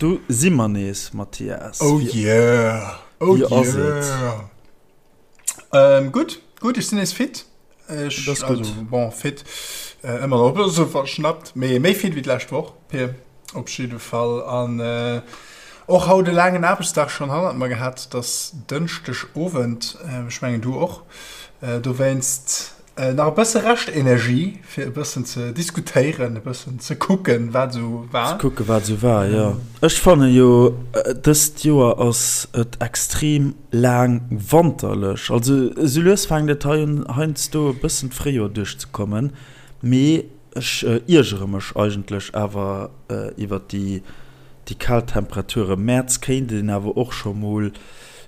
Do si mer nees, Mathias. Oh yeah! Oh Wéi ass et? yeah! Ähm, gutt, gutt, ech sinn nees fit. Ech, Dat ass gutt. also, bon, fit, äh, ëmmer nach e bësse verschnappt, mee méi fit wéi d'lescht Woch, Pir, op jidde Fall. An äh, och haut e laangen Aarbechtsdag schonn hannert mer gehat. Et ass Dënschdeg Owend, äh, ech mengen du och. Äh, dowéinst Nach e bësse Reschtenergie, fir e bëssen ze diskutéieren, e bëssen ze kucken, wat esou war. Ze kucken, wat esou war, jo. Ech fanne jo, dëst Joer ass et extrem laang wanterlech. Also esou lues fänkt et hei un, heiansdo e bëssen d'Fréijoer duerchzekommen. Mee ech iergere mech eigentlech awer iwwer déi, déi kal Temperature. Mäerz kéint een awer och scho mol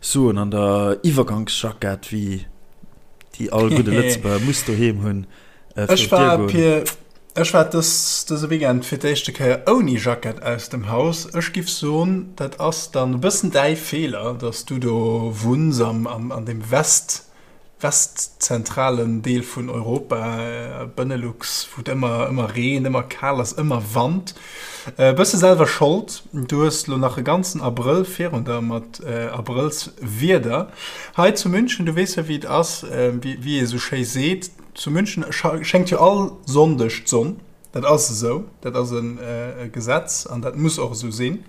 soen, an der Iwwergangsjackett, wéi. Déi all gudde Lëtzebuerger muss doheem hunn. Äh, ech war Pir, ech war dës, dëse Weekend fir d'éischte Kéier ouni Jackett aus dem Haus. Ech giff soen, dat ass dann e bëssen däi Feeler, dass du do wunns am, am, an dem West, westzentralen Deel vun Europa, äh, Benelux, wou et ëmmer, ëmmer reent, ëmmer kal ass, ëmmer Wand. E bësse selwer Schold, du hues lo nach e ganzen Abrëll virun der mat Abrëllswieder. Hei zu München, du weess jo wéi et ass, wéi ee sou schéi seet, zu München schéngt jo all Sonndeg d'Sonn. Dat ass esou, dat ass e Gesetz an dat muss och esou sinn.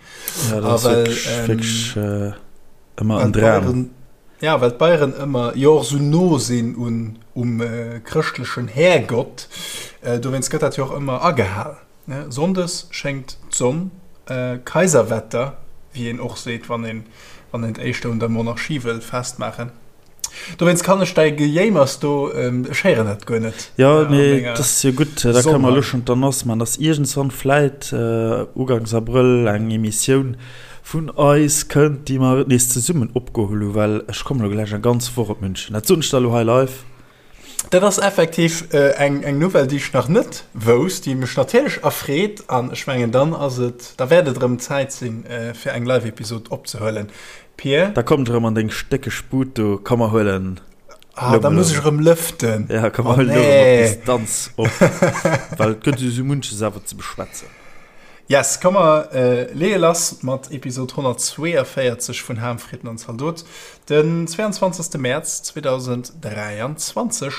Ja, dat ass wierklech ëmmer en Dram. Ja, well d'Bayeren ëmmer jo och esou no sinn un um chrëschtlechen Härgott, dowéinst gëtt dat jo och ëmmer agehal. Sonndes schéngt d'Sonn, Kaiserwetter, wéi een och seet, wann een wann een et éischter un der Monarchie wëll festmaachen. Dowéinst kann ech däi Gejéimers do, ech héieren dat guer net. Jo, mee dat ass jo gutt, da kënne mer elo schonn d'Annonce maachen, dass iergendswann vläit uganks Abrëll eng Emissioun vun eis kënnt, déi mer nees zesummen opgeholl hunn, well ech kommen elo gläich eng ganz Woch op München. Dat soen ech der elo hei live. Dat ass effektiv eng eng Nouvelle, déi ech nach net wousst, déi mech natierlech erfreet. An ech mengen, dann ass et, da wäert et erëm Zäit sinn, fir eng Live-Episod opzehuelen, Pir. Da komm ech erëm an deng stéckeg Bud do, komm mer huelen. Ah, da muss ech erëm lëften. Ja, komm mer huelen elo erëm op Distanz op, well et gëtt jo esou munches awer ze beschwätzen. Yes, komm mer leeë lass mat Episod 142 vun Ham, Fritten an Zaldot, den 22. Mäerz 2023.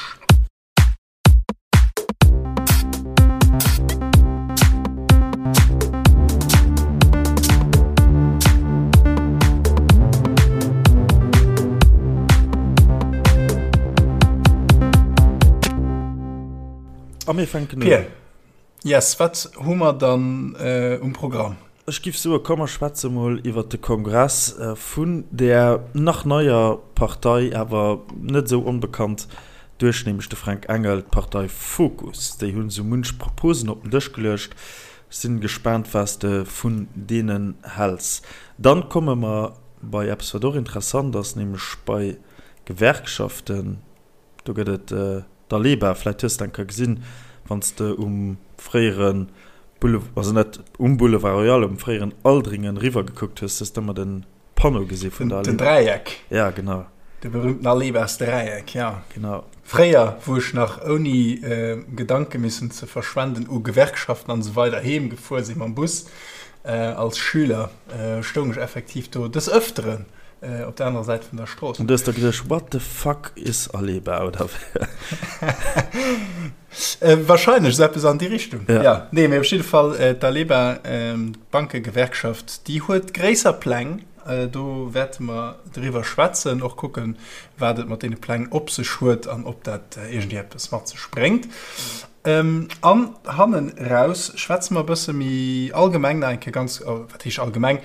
A mir fänken un. Pir. Yes, wat hu mer dann um Programm? Ech giff soe komm mer schwätze mol iwwert de Kongress vun där nach neier Partei, awer net esou onbekannt duerch nämlech de Fränk Engel, d'Partei Fokus. Déi hunn esou munch Proposen op den Dësch geluecht. Sinn gespaant was de vun deenen häls. Dann komme mer bei eppes wat och interessant ass, nämlech bei Gewerkschaften. Do gëtt et d'Aleba, vläit hues de eng Kéier gesinn, wann s de um fréiere Boulevard, also net um Boulevard Royal, um fréieren Aldringen eriwwer gekuckt hues, hues de ëmmer de Panneau gesi vun der Aleba. Den Dräieck. Ja, genau. De berühmten Alebas-Dräieck, ja. Genau. Fréier, wou ech nach ouni Gedanke missen ze verschwenden u Gewerkschaften an esou weider heem gefuer sinn mam Bus als Schüler, stoung ech effektiv do des Ëfteren. Op der anerer Säit vun der Strooss. An du hues der geduecht, What the fuck is Aleba? Oder wéi? Wahrscheinlech esou eppes an déi Richtung. Ja. Ja. Nee, mee op jidde Fall, d'Aleba, d'Bankegewerkschaft, déi huet gréisser Pläng. Do wäerte mer driwwer schwätzen, och kucken, wat et mat deene Pläng op sech huet an ob dat iergendwéi eppes mat sech bréngt. An hannen raus schwätze mer e bësse méi allgemeng nach eng Kéier ganz, wat heescht allgemeng,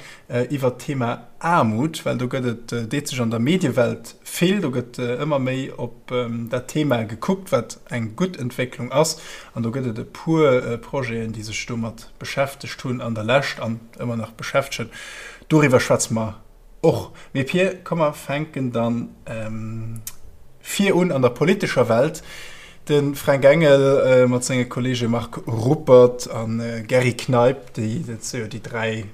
iwwert d'Thema Aarmut, well do gëtt et, deet sech an der Mediewelt vill, do gëtt ëmmer méi op dat Thema gekuckt, wat eng gutt Entwécklung ass. An do gëtt et e puer Projeten, déi sech domat beschäftegt hunn an der Lescht an ëmmer nach beschäftegen. Doriwwer schwätze mer Och. Mee Pir, komm mer fänken dann vir un an der politescher Welt. De Fränk Engel mat senge Kollege Marc Ruppert a Gerry Kneip, déi, dat si jo déi 3.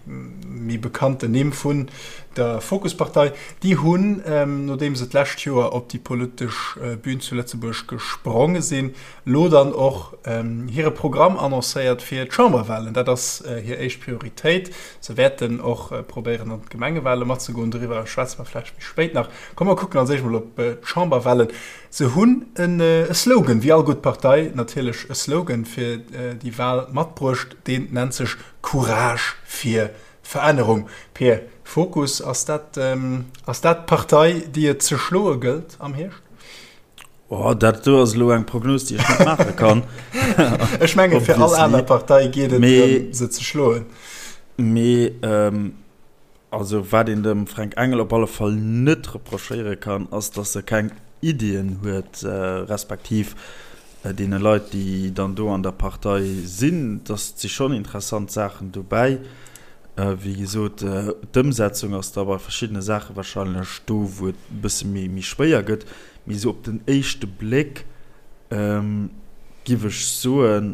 méi bekannten Nimm vun der Fokuspartei, déi hunn, nodeem se d'lescht Joer op déi politesch Bün zu Lëtzebuerg gespronge sinn, lo dann och hire Programm annoncéiert fir d'Chamberwahlen. Dat ass hir éischt Prioritéit. Se wäerten och probéieren an d'Gemengewahle matzegoen. Doriwwer schwätze mer vläicht méi spéit nach. Komm mer kucken als éischt mol op d'Chamberwahlen. Se hunn e Slogan, wéi all gutt Partei natierlech e Slogan fir déi Wahl matbruecht. Deen nennt sech Courage fir Verännerung. Pir, Fokus, ass dat ass dat d'Partei, déi et ze schloe gëllt am Hierscht? Oh, dat do ass elo eng Prognos, déi ech net maache kann. Ech menge fir all aner Partei geet et drëm, se ze schloen. Mee also wat een dem Fränk Engel op alle Fall net reprochéiere kann, ass, datt e keng Iddien huet, respektiv deene Leit, déi dann do an der Partei sinn, datt si schonn interessant Saachen dobäi. Wéi gesot, d'Ëmsetzung ass da bei verschiddene Saache warscheinlech do, wou et e bësse méi schwéier gëtt. Mee esou op den éischte Bléck giff ech soen,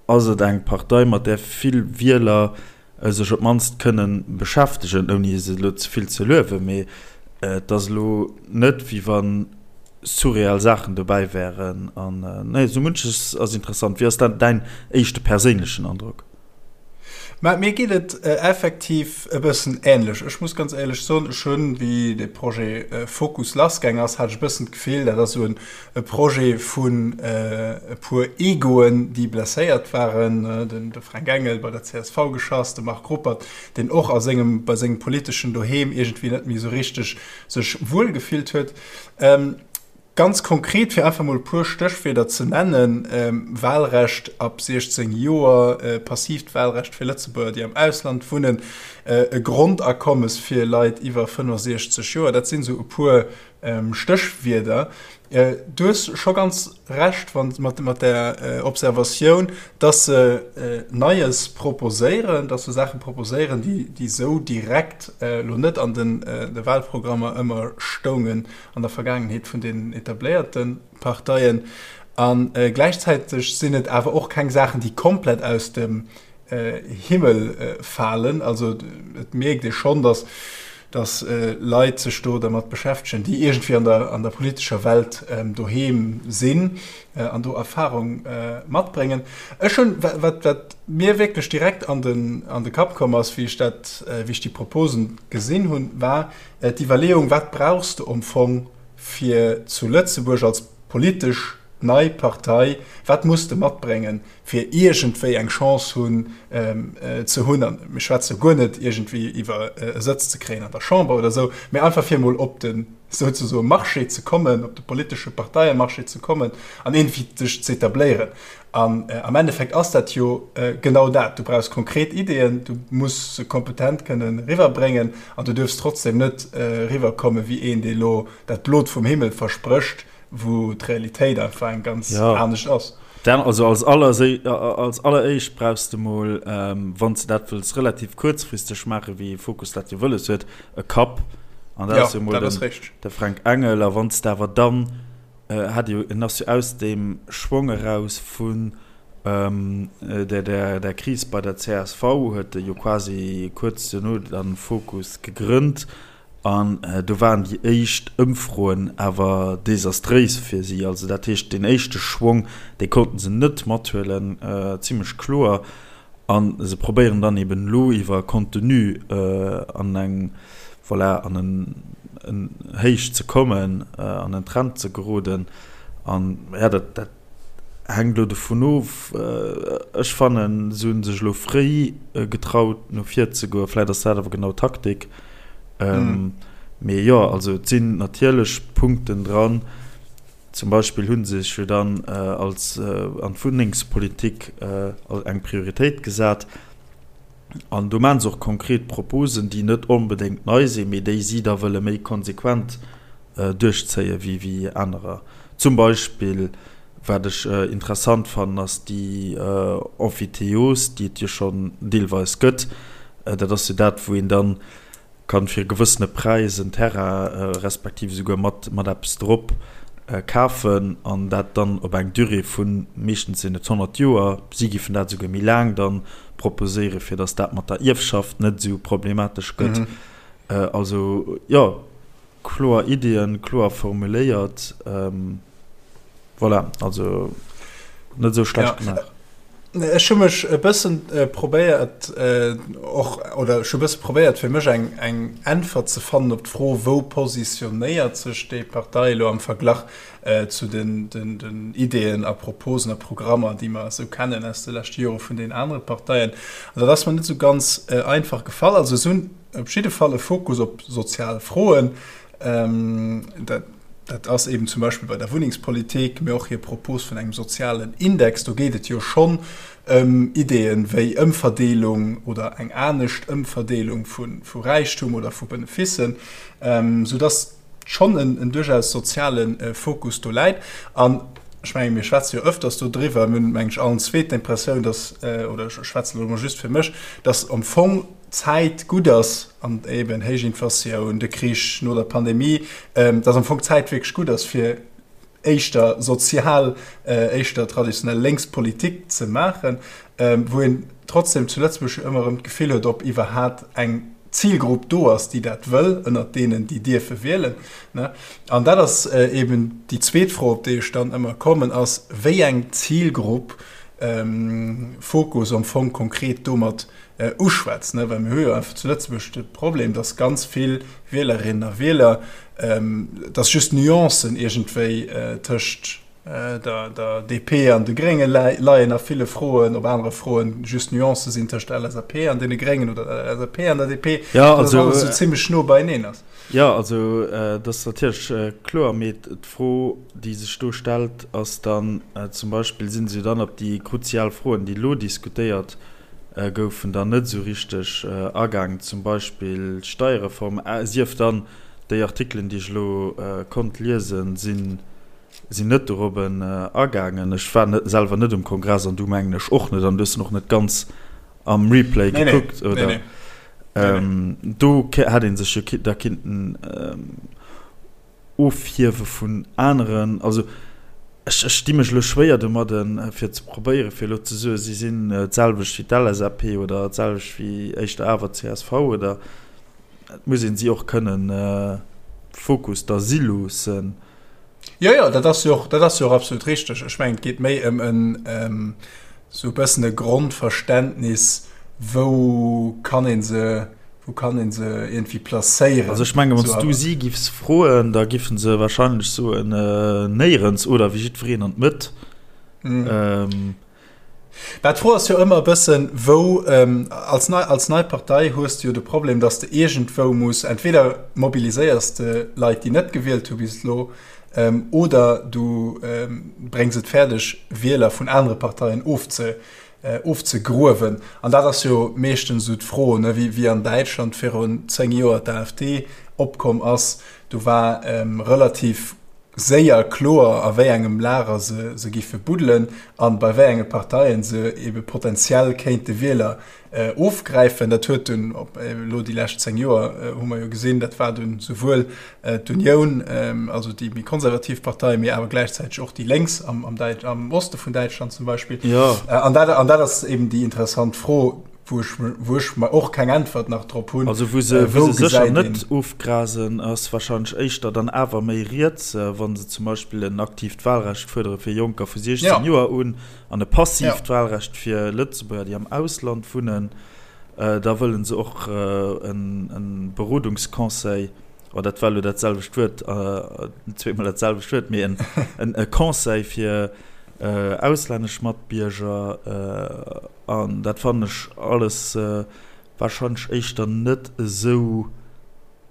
ass et eng Partei, mat där vill Wieler sech op d'mannst kënne beschäftegen, ouni se elo ze vill ze luewen. Mee et ass elo net, wéi wa surreal Saachen dobäi wären. An nee, esou munches ass interessant. Wéi ass dann däin éischte perséinlechen Androck? Mä mir geet et effektiv e bëssen änlech. Ech muss ganz éierlech soen, ech hunn, wéi dee Projet Fokus lassgaang ass, hat ech e bëssen d'Gefill, dat ass esou e Projet vun e puer Egoen, déi blesséiert waren, den de Fränk Engel bei der csv geschass, de Marc Ruppert, deen och a sengem, bei sengem politeschen Doheem iergendwéi net méi esou richteg sech wuel gefillt huet. Ganz konkret, fir einfach mol e puer Stéchwierder ze nennen, Wahlrecht ab 16 Joer, passiivt Wahlrecht fir Lëtzebuerger, déi am Ausland wunnen, e Grondakommes fir Leit iwwer 65 Joer, dat sinn esou e puer Stéchwierder. Du hues scho ganz Recht mat där Observatioun, dass se Neies proposéieren, dass se Saache proposéieren, déi esou direkt elo net an de Wahlprogrammer ëmmer stoungen. an der Vergaangenheet vun den etabléierte Parteien. A gläichzäiteg sinn et awer och keng Saachen, déi komplett aus dem Himmel falen. Also et mierkt ee schonn, datt datt Leit sech do dermat beschäftegen, déi iergendwéi an der an der politescher Welt doheem sinn an do Erfarung matbréngen. Ech hunn, wat wat mir wierklech direkt an den an de Kapp komm ass, wéi ech dat wéi ech déi Proposen gesinn hunn, war, D'Iwwerleeung, wat brauchs de am Fong fir zu Lëtzebuerg als politesch nei Partei, wat muss de matbréngen, fir iergendwéi eng Chance hunn ze hunn, a mir schwätze guer net iergendwéi iwwer e Sëtz ze kréien an der Chamber oder esou, mä einfach fir emol op de souzesoe Marché ze kommen, op de politesche Parteiemarché ze kommen an iergendwéi sech z'etabléieren. An am Endeffekt ass dat jo genau dat, Du brauchs konkret Ideeën, du muss se kompetent kënnen eriwwerbréngen an du duerfs trotzdem net eriwwerkomme wéi een, dee lo dat Blot vum Himmel versprécht, wou d'Realitéit einfach eng ganz anescht ass. Also als alleréischt brauchs de mol, wann s de dat wëlls relativ kuerzfristeg maachen, wéi Fokus dat jo wëlles huet, e Kapp. An dat ass jo mol de Fränk Engel. A wann s de awer dann Hat jo, en ass jo aus deem Schwong eraus vun der Kris bei der csv, huet e jo quasi kuerz duerno dann Fokus gegrënnt an do waren déi éischt Ëmfroen awer desastréis fir si. Also dat heescht, deen éischte Schwong, dee konnten se net mathuelen, zimlech kloer. A se probéieren dann eben elo iwwer Contenu an eng, voilà, an en Héich ze kommen, an en Trend ze geroden. An ja, dat, dat hänkt elo dovun of. Ech fannen, se hu sech elo fréi getraut, no vir ze goen. Vläicht ass dat awer genau Taktik. Mee jo, also et sinn natierlech Punkten dran. Zum Beispill hu se sech jo dann als an d'Wunnengspolitik eng Prioritéit gesat. An do maache se och konkret Proposen, déi net onbedéngt nei sinn, mee déi si da wëlle méi konsequent duerchzéie wéi anerer. Zum Beispill, wat ech interessant fannen, ass déi Emphytéose, déi et jo schonn deelweis gëtt. Dat ass jo dat, wou een dann kann fir e gewëssene Präis en Terrain, respektiv esouguer mat mat eppes drop. Kafen an dat dann op eng Durée vu, meeschtens sinn et 100 Joer, si giffen dat esouguer méi laang dann proposéieren, fir datt dat mat der Ierfschaft net esou problematesch gëtt. Also jo, kloer Iddien, kloer formuléiert. Voilà, also net esou schlecht gemaach. Ech hu mech e bëssen probéiert och, oder ech hu bësse probéiert fir mech eng eng Äntwert ze fannen op d'Fro, wou positionéiert sech déi Partei elo am Verglach zu den den den Ideeën a Proposen a Programmer, déi mer esou kennen aus de leschte Jore vun den anere Parteien. An dat ass mer net esou ganz einfach gefall. Also se hunn op jidde Fall e Fokus op sozial Froen. Dat Dat ass eben zum Beispill bei der Wunnengspolitik, mee och hir Propos vun engem sozialen Index. Do geet et jo schonn ëm Ideeën wéi Ëmverdeelung oder eng anescht Ëmverdeelung vu Räichtum oder vu Benefissen, soudass schonn en duerchaus soziale Fokus do läit. An ech mengen, mir schwätze jo ëfters do driwwer, mir hunn, meng ech, allen zwee d'Impressioun, dass, oder ech schwätzen elo emol just fir mech, dass am Fong d'Zäit gutt ass, an eben héich Inflatioun, de Krich no der Pandemie, dass am Fong d'Zäit wierklech gutt ass, fir éischter sozial, éischter traditionell lénks Politik ze maachen, wou een trotzdem zu Lëtzebuerg jo ëmmer erëm d'Gefill huet, ob iwwerhat eng Zilgrupp do ass, déi dat wëll, ënnert deenen, déi dierfe wielen. An dat ass eben déi zweet Fro, op déi ech dann ëmmer kommen, ass, wéi eng Zilgrupp Fokus am Fong konkret domat uschwätzt, well mir hu jo einfach zu Lëtzebuerg de Problem, dass ganz vill Wielerinnen a Wieler, dass just Nuancen iergendwéi tëscht der DP an de Grénge leien a ville Froen, op anere Froen just Nuancë sinn tëscht der LSAP an deene Gréngen oder der LSAP an der DP, dass alles esou zimmlech no beieneen ass. Jo, also dat ass natierlech kloer, mee d'Fro, déi sech do stellt, ass dann zum Beispill, si se jo dann op déi kruzial Froen, déi elo diskutéiert goufen dann net esou richteg agaangen, zum Beispill d'Steierreform, sief dann déi Artikelen, déi ech elo konnt liesen, sinn net dorobben agaangen. Ech war net selwer net um Kongress an du mengen ech och net an du hues en och net ganz am Replay gekuckt, oder? Do hätt ee sech jo da kinnten Ofhiewe vun aneren. Also ech ech di mech elo schwéier domadden, fir ze probéieren, fir elo ze soen, si sinn d'selwecht wéi d'LSAP oder d'selwecht wéi éischter awer csv oder. Et muss een si och kënnen Fokus da si loossen. Jo, jo, dat ass jo och, dat ass jo och absolut richteg. Ech mengen, et geet méi ëm en esou e bëssen e Grondverständnis, wou kann ee se Wou kann een se iergendwéi placéieren? Also ech mengen, wann s du si giffs froen, da giffen se wahrscheinlech soen, néierens oder wéi jiddwereen an d'Mëtt. Mä d'Fro ass jo ëmmer e bëssen, wou, als nei, als nei Partei hues de jo de Problem, datt s de iergendwou muss, entweder mobiliséiers de Leit, déi net gewielt hu bis elo, oder du bréngs et fäerdeg, Wieler vun anere Parteien ofze ofzegruewen. An dat ass jo meeschtens esou d'Fro, ne, wéi, wéi an Däitschland virun 10 Joer d'AfD opkomm ass, do war relativ séier kloer, a wéi engem Lager se, se giffe buddelen an bei wéi enge Parteien se ebe potenziell kéinte Wieler ofgräifen. Dat huet dunn, op elo déi lescht 10 Joer hu mer jo gesinn, dat war dunn souwuel d'Unioun, also déi méi konservativ Partei, mee awer gläichzäiteg och déi Lénks am, am, Däit, am Oste vun Däitschland zum Beispill. Ja. An dat, an dat ass eben déi interessant Fro, wou ech, wou ech mer och keng Äntwert nach drop hunn. Also wou se, wou se sécher net ofgrasen, ass wahrscheinlech éischter dann awer méi riets, wa se zum Beispill en aktiivt Wahlrecht fuerdere fir Jonker vu 16 ja. Joer un an e passiivt ja. Wahlrecht fir Lëtzebuerger, déi am Ausland wunnen. Da wëllen se och en Berodungsconseil, oh dat war elo dat selwecht Wuert, zweemol dat selwecht Wuert, mee en Conseil fir auslännesch Matbierger. An dat fannen ech alles wahrscheinlech éischter net esou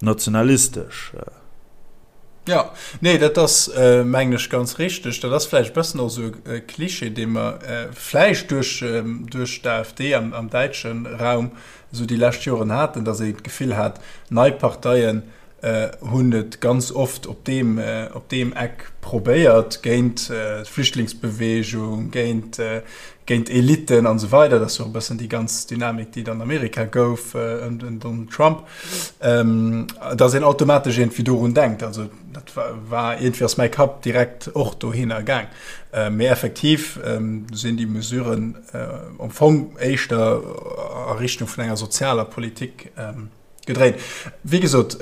nationalistesch. Jo, nee, dat ass, mengen ech, ganz richteg. Dat ass vläicht e bëssen och esou e Klischee, dee mer vläicht duerch, duerch d'AfD am, am däitsche Raum esou déi lescht Joren haten, datt ee d'Gefill hat, nei Parteien. Hunn et ganz oft op deem, op deem Eck probéiert, géint d'Flüchtlingsbeweegung, géint, géint Eliten an esou weider. Dat ass jo och e bëssen déi ganz Dynamik, déi et an Amerika gouf ëm den Donald Trump, dass een automatesch iergendwéi dorun denkt. Also dat war iergendwéi ass mäi Kapp direkt och dohinner gaang. Mee effektiv sinn déi Mesuren am Fong éischter a Richtung vun enger sozialer Politik. Gedréint. Wéi gesot,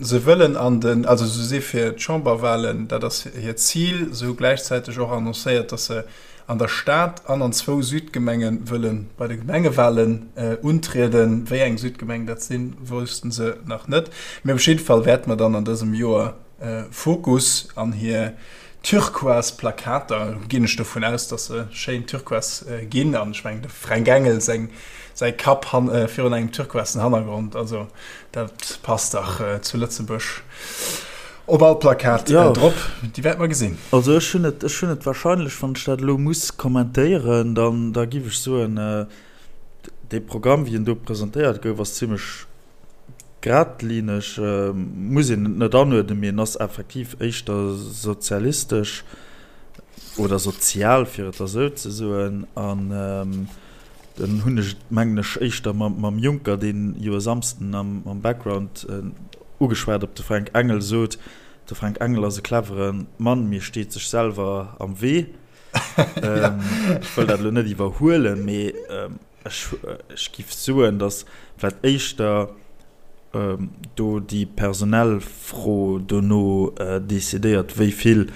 se wëllen an den, also se si fir d'Chamberwahlen, dat ass hiert Zil. Se hu gläichzäiteg och annoncéiert, datt se an der Stad an an zwou Südgemenge wëlle bei de Gemengewahlen untrieden. Wéi eng Südgemengen dat sinn, wousste se nach net. Mee op jidde Fall wäerte mer dann an dësem Joer Fokus an hir turquoise Plakater, ginn ech dovun aus, dass se schéin turquoise ginn, an ech mengen de Fränk Engel seng säi Kapp han virun engem turquoisen Hannergrond, also dat passt dach zu Lëtzebuerg op all Plakat drop, déi wäerte mer gesinn. Also ech hunn et, ech hunn et wahrscheinlech, wann ech dat elo muss kommentéieren, dann da giff ech soen, dee Programm wéi en do presentéiert gouf ass zimmlech Gradlineg muss een et net anuerdnen, mee en ass effektiv éischter sozialistesch oder sozial, fir et da sou ze soen. An dann hunn ech et, mengen ech, éischter mam Juncker, deen jo e Samsden am Background ugeschwat op de Fränk Engel sot, de Fränk Engel ass e clevere Mann, mee steet sech selwer am Wee. Ech wëll dat elo net iwwerhuelen, mee Ech giff soen, datt vläit éischter do déi personell Fro dono decidéiert, wéi vill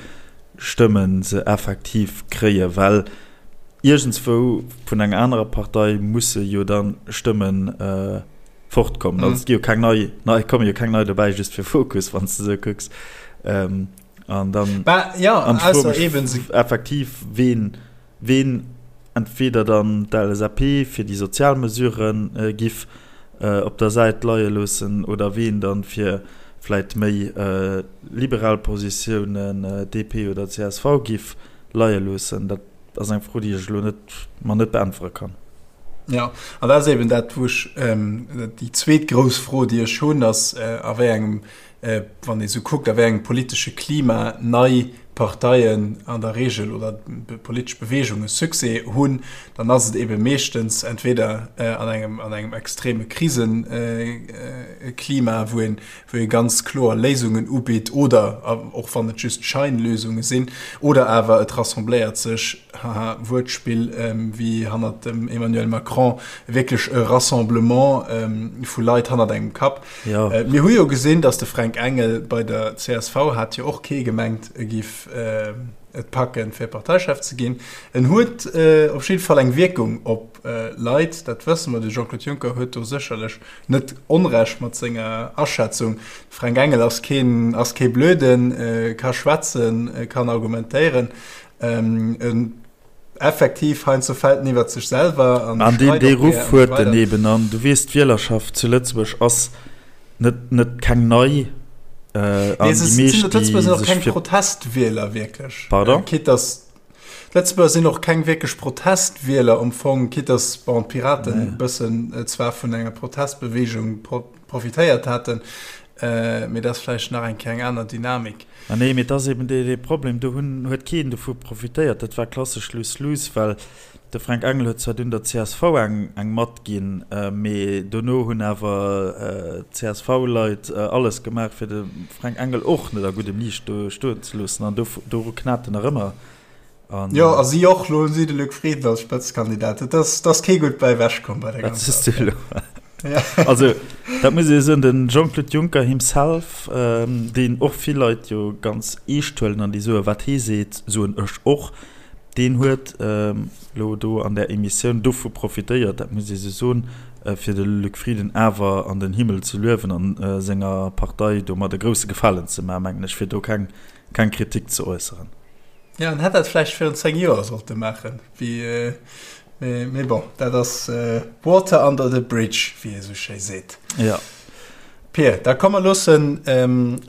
Stëmme se effektiv kréien, well iergendswou vun enger anerer Partei musse jo da Stëmme fortkommen. Also et gi jo keng nei, et komme jo keng nei dobäi just fir Fokus, wann s de esou kucks. An dann, an ech froe mech effektiv, ween ween entweder dann d'LSAP fir déi sozial Mesuren giff op der Säit leie loossen oder ween dann fir vläit méi liberal Positiounen, DP oder csv, giff leie loossen. Dat ass eng Fro, déi ech elo net mer net beäntwere kann. Jo, an dat ass eben dat, wou ech, déi zweet grouss Fro, déi ech hunn, ass, a wéi engem wann ee sou kuckt, a wéi engem politesche Klima nei Parteien an der Regel oder politesch Beweegunge Succès hunn, dann ass et ebe meeschtens entweder an engem, an engem extreme Kriseklima, wou een, wou ee ganz kloer Léisungen ubitt oder, och wann et just Scheinlösunge sinn, oder awer et rassembléiert sech, haha, Wuertspill, wéi hannert dem Emmanuel Macron, wierklech e Rassemblement vu Leit hannert engem Kapp. Jo. Mir hu jo gesinn, datt de Fränk Engel bei der csv hat jo och kee gemengt, e giff et packen, fir Parteichef ze ginn. En huet op jidde Fall eng Wierkung op Leit, dat wësse mer. De Jean-Claude Juncker huet do sécherlech net Onrecht mat senger Aschätzung. De Fränk Engel ass keen, ass kee Blöden, ka schwätzen, kann argumentéieren. En Effektiv, heiansdo fält en iwwert sech selwer an An deen, dee Ruff huet en eben. An du weess, d'Wielerschaft zu Lëtzebuerg ass net, net keng nei. An déi meescht, déi sech fir. Keng Protestwieler wierklech. Pardon? Quitte dass d'Lëtzebuerger sinn och keng wierklech Protestwieler am Fong, quitte dass, bon, d'Piraten e bëssen zwar vun enger Protestbeweegung profitéiert haten, mee dat ass vläicht nach eng Kéier eng aner Dynamik. Ah nee, mee et ass eben dee Problem, do hunn, huet keen dovu profitéiert. Dat war klassesch Lose-Lose, well de Fränk Engel huet zwar dunn der csv eng, eng matginn, mee dono hunn awer d'CSV-Leit alles gemaach, fir de Fränk Engel och net a guddem Liicht do stoen ze loossen an do, doru knat en nach ëmmer. An, jo, a si och, lo hunn si de Luc Frieden als Spëtzekandidat. Et ass, et ass kee gutt bäi ewech komm bei der ganzer Affär. Ja. Also, dat muss ee soen, den Jean-Claude Juncker himself, ähm, deen och vill Leit jo ganz eescht huelen an déi soen, wat hee seet, soen ech och, deen huet ähm, lo do an där Emissioun dovu profitéiert, dat muss ee sou soen, äh, fir de Luc Frieden awer an den Himmel ze luewen an äh, senger Partei domat e grousse Gefalen ze maachen, mengen ech, fir do keng, keng Kritik ze äusseren. Ja, en hätt dat vläicht virun 10 Joer sollte maachen, wéi, mee bon, dat ass water under the bridge, wéi ee sou schéi seet. Ja. Pir, da komm mer loossen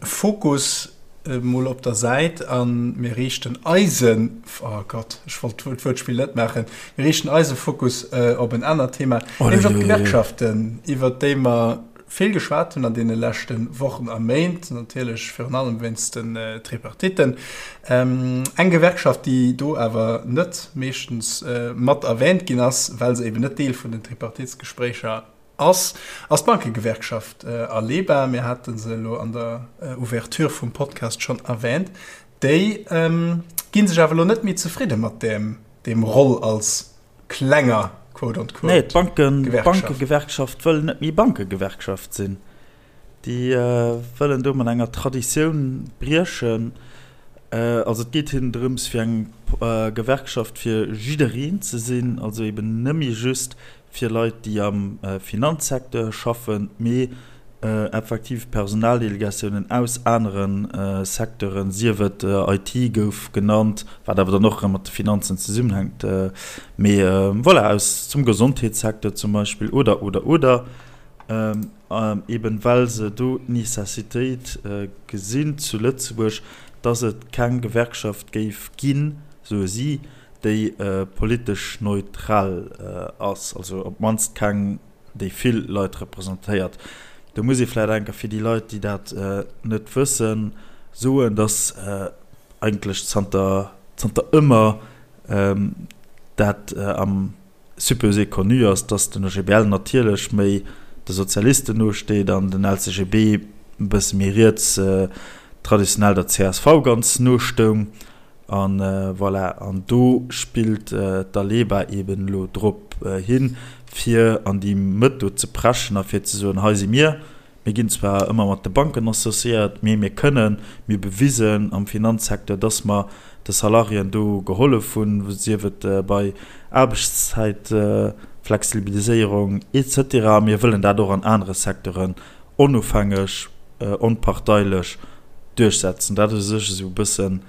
Fokus mol op der Säit a mir riichten eisen, oh Gott, ech wollt d'Wuertspill net maachen, mir riichten eise Fokus op en anert Thema, nämlech op d'Gewerkschaften, iwwert déi mer. vill geschwat hunn an deene leschte Wochen a Méint, natierlech virun allem wéinst den Tripartitten. Eng Gewerkschaft, déi do awer net meeschtens mat erwähnt ginn ass, well se eben net Deel vun den Tripartitsgespréicher ass, ass d'Bankegewerkschaft Aleba. Mir hate se elo an der Ouverture vum Podcast schonn erwähnt. Déi gi sech awer elo net méi zefridde mat deem Roll als klenger, quote unquote, Nee, Gewerkschaft. D'Bankegewerkschaft wëll net méi Bankegewerkschaft sinn. Déi wëllen do mat enger Traditioun briechen. Also et geet hinnen drëms, fir eng Gewerkschaft fir jiddereen ze sinn, also eben net méi just fir Leit, déi am Finanzsecteur schaffen, mee effektiv Personaldelegatiounen aus anere Secteuren, sief et IT gouf genannt, wat awer dann och erëm mat de Finanzen zesummenhänkt, mee voilà, aus zum Gesondheetssecteur zum Beispill oder, oder, oder, eben well se do d'Necessitéit gesinn zu Lëtzebuerg, dass et keng Gewerkschaft géif ginn, soe si, déi politesch neutral ass, also op d'mannst keng, déi vill Leit representéiert. Do muss ee vläicht enker fir déi Leit, déi dat net wëssen, soen, dass eigentlech zanter, zanter ëmmer dat am supposé connu ass, dass den OGBL natierlech méi de Sozialisten nosteet an den LCGB e bësse méi riets, traditionell der csv ganz nostoung. A voilà, an do spillt d'Aleba eeben elo drop hin, fir an déi Mëtt do ze preschen a fir ze soen, hei si mir, mir ginn zwar ëmmer mat de Banken associéiert, mee mir kënnen, mir hu bewisen am Finanzsecteur, dass mer de Salariéen do gehollef hunn, sief et bei Aarbechtszäitflexibiliséierung et cetera. A mir wëllen dat och an anere Secteuren onofhängeg, onparteilech duerchsetzen. Dat ass u sech esou e bëssen,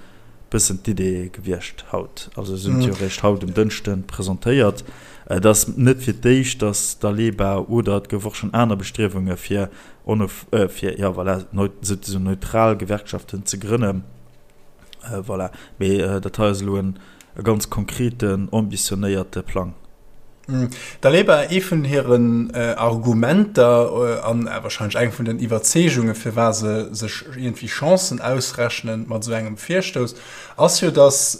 bëssen d'Idee gewiescht haut. Also se hunn et jo eréischt haut um Dënschde presentéiert. Et ass net fir d'éischt, datt d'Aleba oder et gouf och schonn aner Bestriewunge fir onof, fir, jo voilà, souzesoen neutral Gewerkschaften ze grënnen. Voilà, mee dat hei ass elo en e ganz konkreten, ambitionéierte Plang. D'Aleba, ee vun hiren Argumenter an wahrscheinlech eng vun den Iwwerzeegungen, firwat se sech iergendwéi Chancen ausrechnen mat esou engem Virstouss, ass jo, datt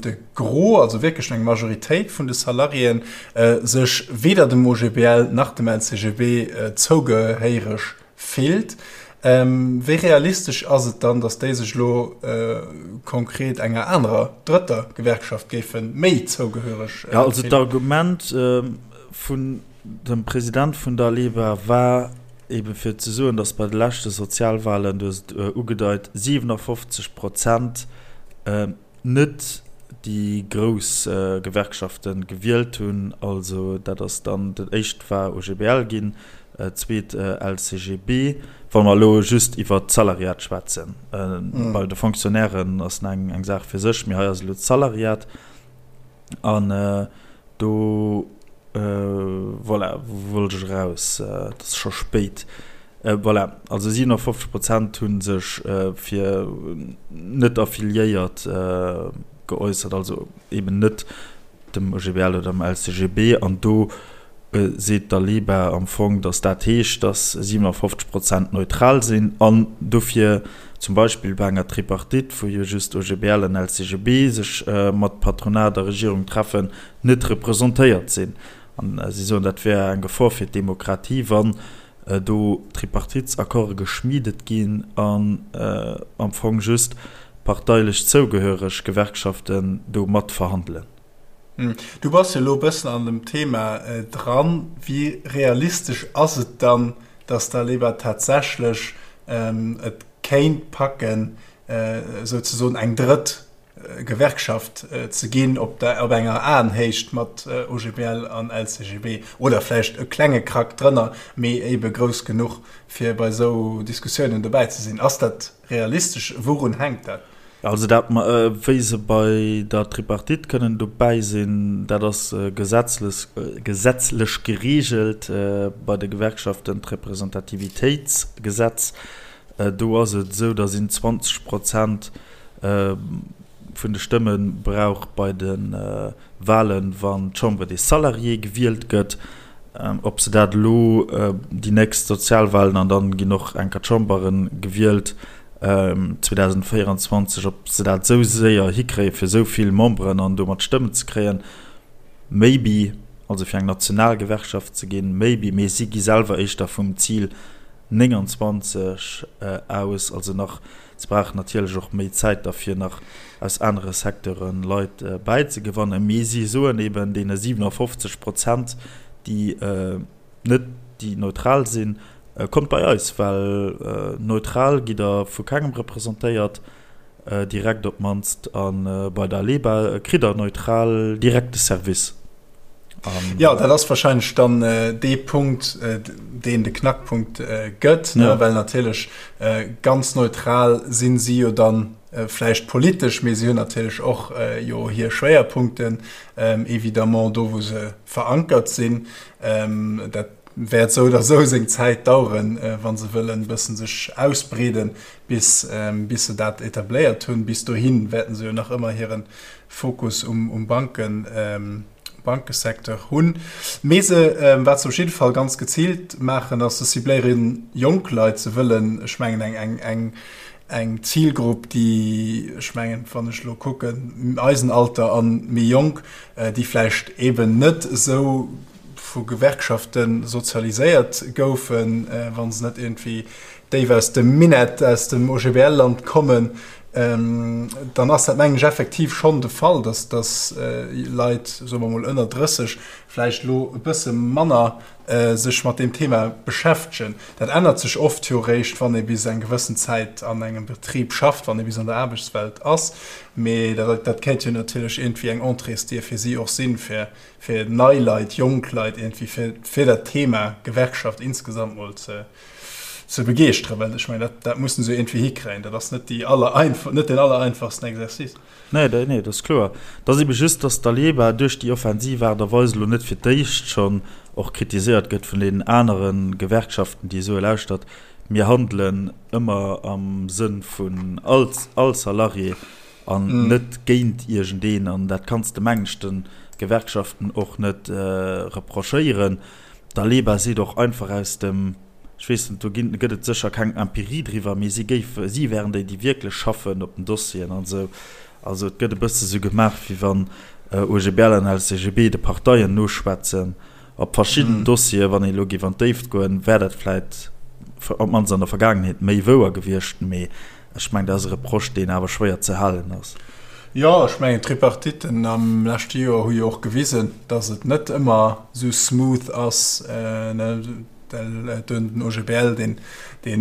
de Gros, also wierklech eng Majoritéit vun de Salariéen, sech weder dem OGBL nach dem LCGB zougehéiereg Fillt. Wéi realistesch ass et dann, datt déi sech elo konkret enger anerer, drëtter Gewerkschaft géife méi zougehöreg fillen? Jo, also d'Argument vun dem President vun der Aleba war ebe fir ze soen, datt bei de leschte Sozialwahlen, du hues et ugedeit, 57 Prozent net déi grouss Gewerkschafte gewielt hunn, also dat ass dann, dat éischt war OGBL ginn, zweet LCGB, wa mer elo just iwwert d'Salariat schwätzen. Bei de Fonctionnairen ass nach eng Saach fir sech, mee hei ass elo d'Salariat. An do, voilà, wou wollt ech eraus? Et ass scho spéit. Voilà, also 57 Prozent hu sech fir net affiliéiert geäussert, also eben net dem OGBL oder dem LCGB. An do seet d'Aleba am Fong, datt dat heescht, datt 57 Prozent neutral sinn an dofir zum Beispill bei enger Tripartite, wou jo just OGBL an LCGB sech mat Patronat a Regierung treffen, net representéiert sinn. An si soen, dat wär eng Gefor fir d'Demokratie, wann do Tripartitesaccorde geschmiedet ginn an am Fong just parteilech zougehöreg Gewerkschaften do matverhandelen. Du bass jo elo e bëssen an dem Thema dran. Wéi realistesch ass et dann, datt d'Aleba tatsächlech et kéint packen, souzesoen eng drëtt Gewerkschaft ze ginn op enger Aenhéicht mat OGBL an LCGB oder vläicht e klenge Krack drënner, mee ebe grouss genuch, fir bei esou Diskussiounen dobäi ze sinn? Ass dat realistesch? Wourun hänkt dat? Also dat, wéi se bei der Tripartite kënnen dobäi sinn, dat ass gesetzlech gereegelt bei de Gewerkschaften, d'Representativitéitsgesetz. Do ass et esou, datt een 20 Prozent vun de Stëmme brauch bei de Walen, wann d'Chambre des Salariés gewielt gëtt. Ob se dat elo déi nächst Sozialwahlen, an dann ginn och enker d'Chambere gewielt 2024, ob se dat esou séier hikréie fir esou vill Memberen an domat Stëmmen ze kréien, maybe, also fir eng national Gewerkschaft ze ginn, maybe, mee si gi selwer éischter vum Zil 29 aus, also nach Se brauchen natierlech och méi Zäit da fir nach aus anere Secteure Leit bäizegewannen. Mee si soen eben deene 57 Prozent, déi net, déi neutral sinn, kommt bei eis, well neutral gitt der vu kengem representéiert, direkt op d'mannst, a bei der Aleba kritt der neutral direkt de Service. Jo, dat ass wahrscheinlech dann dee Punkt, deen de Knackpunkt gëtt, ne? Well natierlech ganz neutral sinn si jo dann vläicht politesch, mee si hunn natierlech och jo hir Schwéierpunkten, évidemment, do wou se verankert sinn. Dat wäert esou oder esou seng Zäit daueren, wa se wëllen e bëssen sech ausbreeden, bis bis se dat etabléiert hunn. Bis dohi wäerten se jo nach ëmmer hiren Fokus um Banken, Bankesecteur hunn. Mee se, wat se op jidde Fall ganz geziilt maachen, ass, se cibléiere jonk Leit. Se wëllen, ech mengen, eng, eng, eng, eng Zilgrupp, déi, ech mengen, wann ech elo kucken, eisen Alter a méi jonk, déi vläicht eeben net esou vu Gewerkschafte sozialiséiert goufen, wa se net iergendwéi déif aus dem Minett, aus dem OGBL-Land kommen, dann ass dat, mengen ech, effektiv schonn de Fall, dass, dass Leit, soe mer emol ënner 30, vläicht elo e bësse manner sech mat deem Thema beschäftegen. Dat ännert sech oft jo eréischt, wann ee bis eng gewëssen Zäit an engem Betrib schafft, wann ee bis an der Aarbechtswelt ass. Mee dat, dat kéint jo natierlech iergendwéi eng Entréesdier fir si och sinn, fir, fir nei Leit, jonk Leit iergendwéi fir, fir dat Thema Gewerkschaft insgesamt mol ze, ze begeeschteren, well ech mengen, dat, dat mussen se iergendwéi hikréien. Dat ass net déi aller, net den allereinfachsten Exercice. Nee, nee, dat ass kloer. Et ass ebe just, datt d'Aleba duerch déi offensiv Aart a Weis elo net fir d'éischt schonn och kritiséiert gëtt vun deenen anere Gewerkschaften, déi soe, Lauschtert, mir handelen ëmmer am Sënn vun all, all Salarié an net géint iergendeen. An dat kanns de, mengen ech, de Gewerkschaften och net reprochéieren. D'Aleba seet och einfach aus dem, ech weess net, do ginn, gëtt et sécher keng Empirie driwwer, mee si géife, si wären déi, déi wierklech schaffen op den Dossieren an esou. Also et gëtt e bësse sou gemaach, wéi wann OGBL an LCGB de Parteien noschwätzen op verschidden Dossieren. Wann een elo géif an d'Déift goen, wär dat vläit op d'mannst an der Vergaangenheet méi wouer gewiescht, mee Ech mengen, dat ass e Reproche, deen awer schwéier ze halen ass. Jo, ech mengen, d'Tripartitten am leschte Joer hu jo och gewisen, datt et net ëmmer esou smooth ass. Den OGBL, deen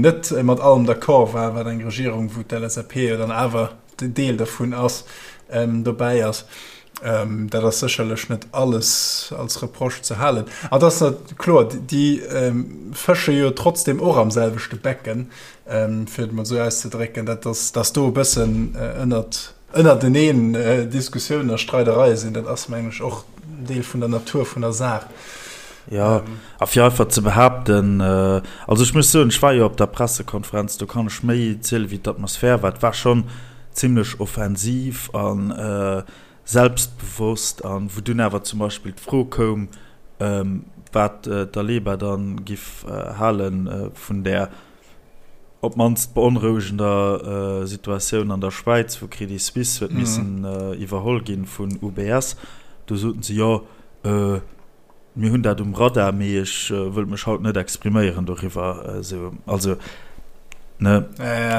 net mat allem d'accord war, wat eng Regierung, wou d'LSAP jo dann awer Deel dervun ass, dobäi ass. Dat ass sécherlech net alles als Reproche ze halen. An et ass kloer, déi fësche jo trotzdem och am selwechte Becken, fir et mol esou auszedrécken, dat ass, dass do e bëssen ënnert, ënnerteneen Diskussiounen a Streidereie sinn, dat ass, mengen ech, och Deel vun der Natur vun der Saach. Jo, a fir einfach ze behaapten, also ech muss soen, ech war jo op der Pressekonferenz, do kann ech méi ziele wéi d'Atmosphär war. Et war schonn zimlech offensiv a selbstbewosst an wou dunn awer zum Beispill d'Fro koum, wat d'Aleba dann giff hale vun där op d'mannst beonrouegender Situatioun an der Schwäiz, wou Credit Suisse huet missen iwwerholl ginn vun UBS, do soten se, jo, Mir hunn dat um Radar, mee ech wëllt mech haut net expriméieren doriwwer. Esou, also, ne?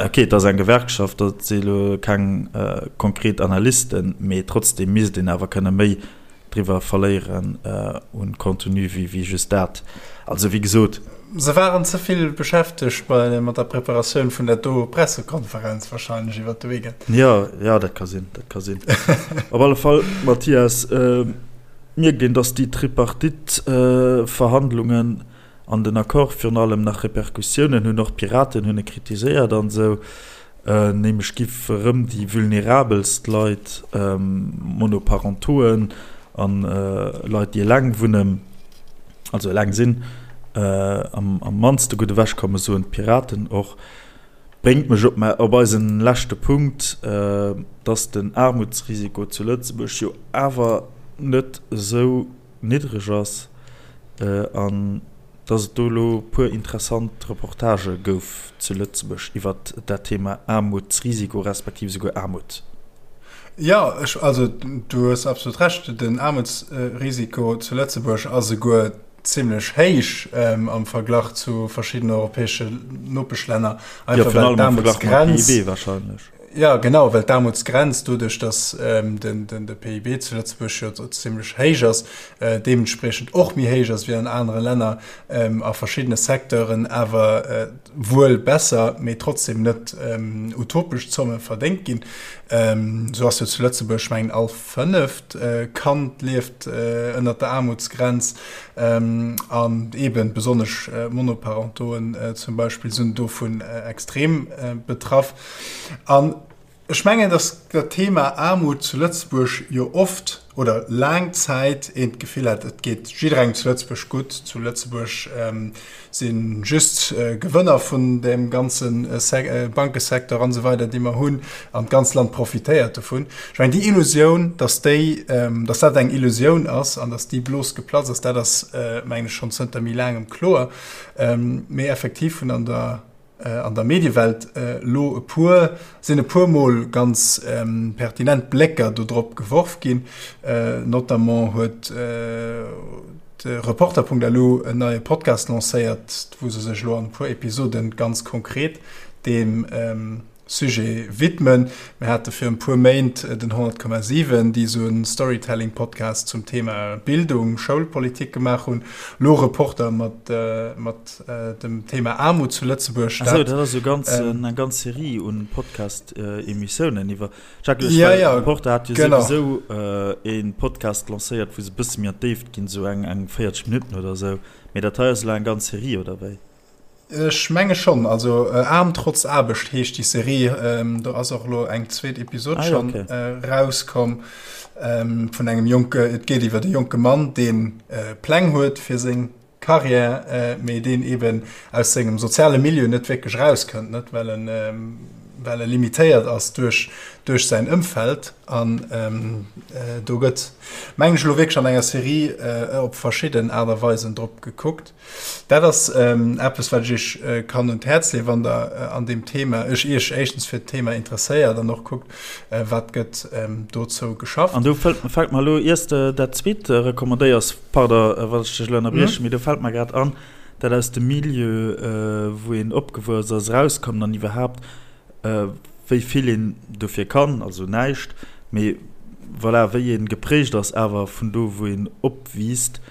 Okay, et ass eng Gewerkschaft, dat si elo keng konkret Analysten, mee trotzdeem misst een awer kënne méi driwwer verléieren un Contenu wéi wéi just dat. Also, wéi gesot. Se waren ze vill beschäftegt bei mat der Preparatioun vun där do Pressekonferenz wahrscheinlech iwwert de Weekend. Jo, jo, dat ka sinn, dat ka sinn. Op alle Fall, Mathias, Mierkt een, datt déi Tripartite-Verhandlungen an den Accord virun allem nach Repercussiounen hunn. Och d'Piraten hunn e kritiséiert an esou. Nämlech giff erëm déi vulnerabelst Leit, Monoparentoen an Leit, déi eleng wunnen, also eleng sinn, am mannste gutt ewechkommen, soen d'Piraten och. Bréngt mech op mä op eisen leschte Punkt, dass den Aarmutsrisiko zu Lëtzebuerg jo awer net esou niddreg ass. An dass et do elo e puer interessant Reportagë gouf zu Lëtzebuerg iwwert dat Thema Aarmutsrisiko respektiv esouguer Aarmut. Jo, ech, also du hues absolut Recht, den Aarmutsrisiko zu Lëtzebuerg ass esouguer zimlech héich am Verglach zu verschiddenen europäesche Nopeschlänner. Einfach well d'Aarmutsgrenz. PIB wahrscheinlech. Ja, genau, well d'Aarmutsgrenz doduerch, datt de PIB zu Lëtzebuerg jo zimlech héich ass, deementspriechend och méi héich ass wéi an anere Länner, a verschiddene Secteuren awer wuel besser, mee trotzdem net utopesch Zomme verdéngt ginn. Esou ass jo zu Lëtzebuerg, mengen, all fënneft Kand lieft ënnert der Aarmutsgrenz an eeben besonnesch Monoparentoen zum Beispill sinn dovun extrem betraff. An ech mengen, dass dat Thema Aarmut zu Lëtzebuerg jo oft oder laang Zäit een d'Gefill hat, et geet jidderengem zu Lëtzebuerg gutt, zu Lëtzebuerg si just Gewënner vun deem ganze Bankesecteur an esou weider, déi mer hunn, an d'ganz Land profitéiert dovun. Ech mengen, déi Illusioun, dass déi, dass dat eng Illusioun ass an dass déi Blos geplatzt ass, dat ass, mengen ech, schonn zënter méi laangem kloer. Mee effektiv hunn an der an der Mediewelt elo e puer, sinn e puer Mol ganz pertinent Blécker do drop geworf ginn. Notamment huet de Reporter.lu en neie Podcast lancéiert, wou se sech elo an e puer Episoden ganz konkret deem Sujet widmen. Mir hate fir e puer Méint den 100,7, déi esou e Storytelling-Podcast zum Thema Bildung, Schoulpolitik gemaach hunn. Lo Reporter mat dem Thema Aarmut zu Lëtzebuerg. Ah sou, dat ass esou ganz eng ganz Serie un Podcast-Emissiounen iwwer. Jacques, ech well, Reporter hat jo souwisou e Podcast lancéiert, wou se e bësse méi an d'Déift ginn, esou eng 40 Minutten oder esou. Mee dat hei ass elo eng ganz Serie, oder wéi? Ech menge schonn. Also Aarm trotz Aarbecht heescht déi Serie. Do ass och elo eng zweet Episod ah, schonn okay. äh, rauskomm ähm, vun engem jonke, et geet iwwer de jonke Mann, deen äh, Pläng huet fir seng Karriär, äh, mee deen eben aus sengem soziale Milieu net wierklech rauskënnt, net well en ähm, well e limitéiert ass duerch, duerch säin Ëmfeld. An ähm, äh, do gëtt meng ech elo wierklech an enger Serie äh, op verschidden Aart a Weisen drop gekuckt. Dat ass eppes, wat ech Iech kann un d'Häerz leeën, wann Der an deem Thema, Iech Iech éischtens fir d'Thema interesséiert an och kuckt, wat gëtt dozou geschafft. An do fält mer elo, iers de dat zweet recommandéiers, pardon, wann ech dech elo ënnerbriechen, mee do fält mer grad an, dat aus dem Milieu, wou een opgewuess ass, erauskommen an iwwerhaapt, wéi vill een dofir kann, also näischt, mee voilà, wéi ee geprägt ass awer vun do, wou een opwiisst.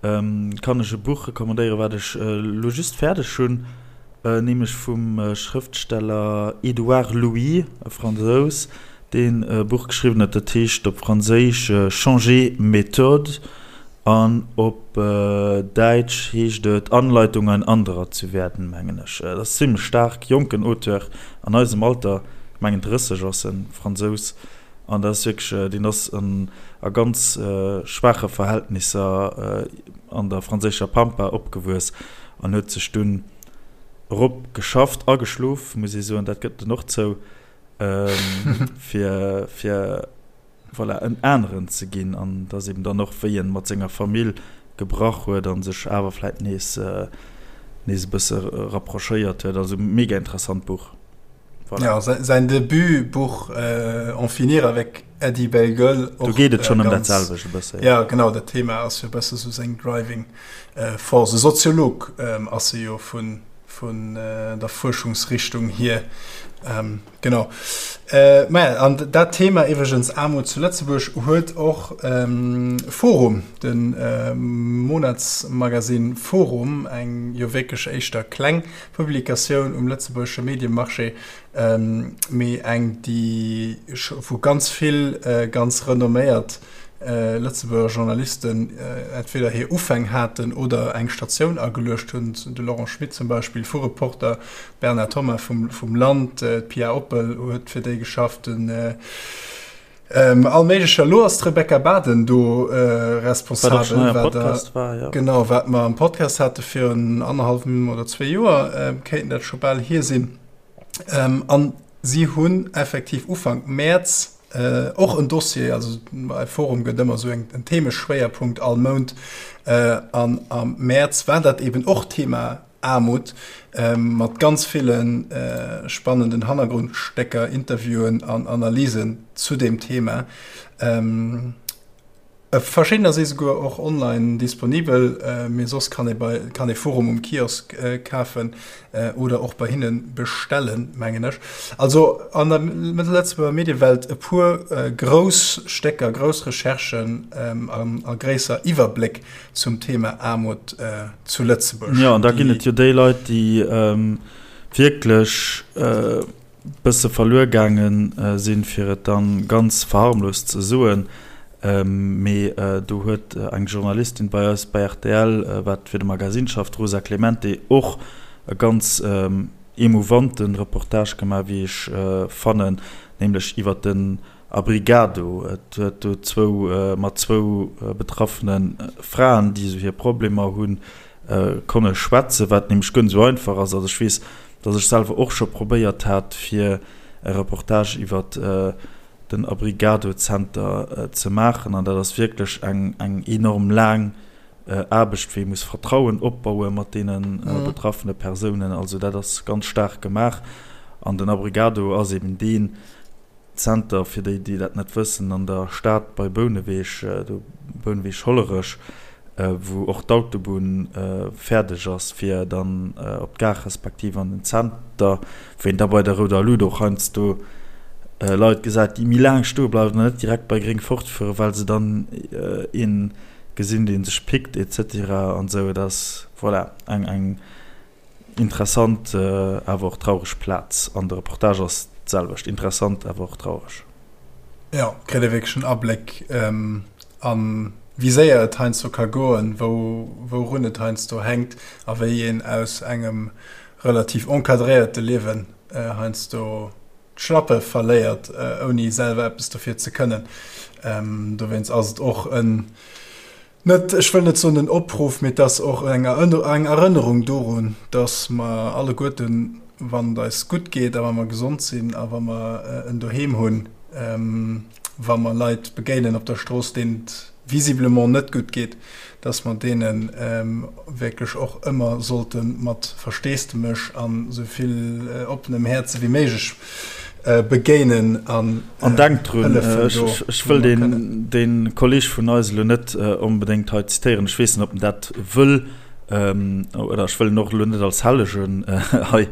Kann ech e Buch recommandéieren, wat ech elo just fäerdeg hunn, nämlech vum Schrëftsteller Édouard Louis, e Fransous, deen e Buch geschriwwen huet, dat heescht op Franséisch Changer méthode an op Däitsch heescht et Anleitung, ein anderer zu werden, mengen ech. Dat ass zimlech staark, jonken Auteur an eisem Alter, ech mengen 30 ass en, Fransous. An dat ass wierklech, deen ass a ganz schwaache Verhältnisser an der franséischer Pampa opgewuess an huet sech dunn erop geschafft, ageschlof, muss ee soen, dat gëtt en och zou, fir, fir voilà, en aneren ze ginn. An dat ass eben dann och, wéi en mat senger Famill gebrach huet a sech awer vläit nees, nees e bësse rapprochéiert huet. Also mega interessant Buch. Voilà. Ja, säin Debutbuch äh, En finir avec Eddie Bellegueule. Do geet et schonn ëm dat selwecht e bësse. Ja, genau, dat Thema ass jo e bësse sou seng Driving äh, Force. E Soziolog ähm, ass e jo vun, vun äh, der Fuerschungsrichtung hier. Ähm, genau. Äh, maja, an dat Thema iwwregens Aarmut zu Lëtzebuerg huet och ähm, Forum, den äh, Monatsmagazin Forum, eng jo wierklech éischter kleng Publikatioun um lëtzebuergesche Mediemarché, mee eng, déi wou ganz vill ganz renomméiert Lëtzebuerger Journalisten entweder hir Ufäng haten oder eng Statioun ageluecht hunn, de Laurent Schmit zum Beispill vu Reporter, d'Bernard Thomas vum Land, d'Pia Oppel huet fir déi geschafft, den All méiglecher. Elo ass d'Rebecca Baden do responsabel, wat der, war, ja. Genau, wat mer am Podcast hate virun annerhallwem oder zwee Joer, kéinten dat scho bal hier sinn. An si hunn effektiv Ufank Mäerz. Och en Dossier, also bei Forum gëtt ëmmer esou en Themeschwéierpunkt all Mount. An am Mäerz war dat eben och Thema Aarmut, mat ganz ville spannenden Hannergrondstécker, Interviewen an Analysen zu deem Thema. Verschiddener si souguer och online disponibel, mee soss kann ee bei kann ee Forum um Kiosk kafen oder och bei hinne bestellen, mengen ech. Also an der Lëtzebuerger Mediewelt e puer grouss Stécker, grouss Recherchen an a gréisser Iwwerbléck zum Thema Aarmut zu Lëtzebuerg. Jo, an da ginn et jo déi Leit, déi wierklech bësse verluer gaange sinn, fir et dann ganz verharmlost ze soen, mee do huet eng Journalistin bei eis bei rtl, wat fir de Magazine schafft, d'Rosa Clemente, och e ganz emouvante Reportage gemaach, wéi ech fannen, nämlech iwwer den Abrigado. Et huet do zwou, mat zwou betraffene Fraen, déi esou hir Problemer hunn, konne schwätzen, wat nämlech guer net esou einfach ass. Also ech weess, dass ech selwer och scho probéiert hat, fir e Reportage iwwer den Abrigado-Zenter ze maachen, an dat ass wierklech eng eng enorm laang Aarbecht, wéi ee muss Vertrauen opbaue mat deene betraffene Persounen. Also dat ass ganz staark gemaach. An den Abrigado ass eben deen Zenter, fir déi, déi dat net wëssen, an der Stad bei Bouneweg, do Bouneweg-Hollerech, wou och d'Autobunn fäerdeg ass, fir dann op d'Gare respektiv an den Zenter, wou een da bei der rouder Lut och heiansdo Leit gesäit, déi méi laang stoe bleiwen an net direkt bei gréng fortfueren, well se dann ee gesinn, dee sech pickt et cetera an esou. Et ass, voilà, eng Interessant awer och traureg Plaz. An de Reportage ass d'selwecht, interessant awer och traureg. Jo, kritt ee wierklech en Abléck an wéi séier et heiansdo ka goen, wou wourun et heiansdo hänkt a wéi een aus engem relativ encadréierte Liewen heiansdo d'Schlappe verléiert, ouni selwer eppes dofir ze kënnen. Dowéinst ass et och en Net, ech wëll net soen en Opruff, mee et ass och eng Erënnerung dorun, dass mer alleguerten, wann et eis gutt geet a wa mer gesond sinn a wa mer en Doheem hunn, wa mer Leit begéinen op der Strooss, deenen et visiblement net gutt geet, dass mer deene wierklech och ëmmer sollte mat Versteesdemech an esou vill oppenem Häerze wéi méiglech begéinen an An denkt drun, ech wëll dee Kolleg vun eis elo net onbedéngt hei zitéieren, ech weess net, ob en dat wëll, oder ech wëll en och elo net als Hellegen hei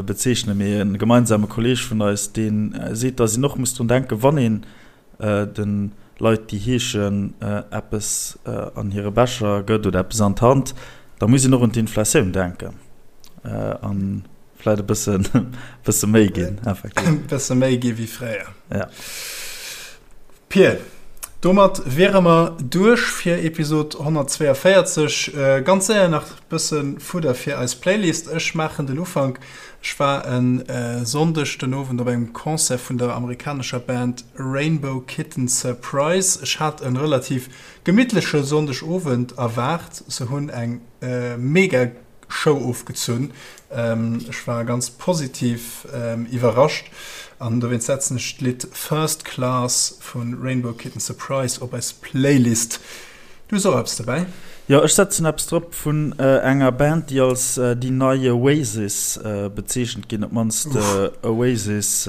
bezeechnen, mee e gemeinsame Kolleg vun eis, dee seet, datt een och muss drun denken, wann een de Leit, déi heeschen, eppes an hire Becher gëtt oder eppes an d'Hand, da muss een och un d'Inflatioun denken. An Vläit e bëssen, bësse méi ginn, effektiv. E bësse méi gi wéi fréier. Ja. Pir, domat wiere mer duerch fir Episod 142. Ganz séier nach bësse Fudder fir eis Playlist. Ech maachen den Ufank. Ech war e Sonndeg den Owend op engem Concert vun der amerikanescher Band Rainbow Kitten Surprise. Ech hat e relativ gemittleche Sonndegowend erwaart. Se hunn eng mega Show ofgezunn. Ech war ganz positiv iwwerrascht an dowéinst setzen ech d'Lidd First Class vu Rainbow Kitten Surprise op eis Playlist. Du hues och eppes dobäi? Jo, ech setzen eppes drop vun enger Band, déi als déi nei Oasis bezeechent ginn, op d'mannst Oasis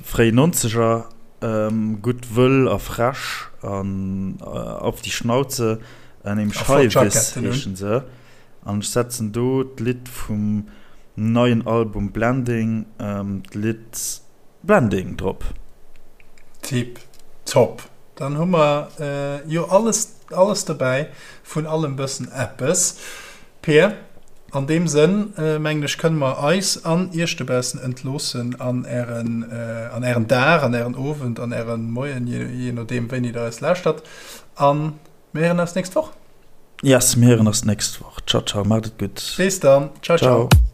fréi Nonzeger. Gutt, wëll a frech an auf die Schnauze. Nämlech High Vis heeschen se. An ech setzen do d'Lidd vum neien Album Blending, d'Lidd Blending drop. Tip top. Dann hu mer jo alles, alles dobäi, vun allem bëssen eppes. Peer, an deem Sënn mengen ech kënne mer eis an iech dobaussen entloossen an ären, an ären Dag, an ären Owend, an ären Moien, je nodeem wéini der eis lauschtert. An mir héieren eis nächst Woch. Yes, mir héieren eis nächst Woch. Ciao, ciao, maacht et gutt. Bis dann. Ciao, ciao. Ciao.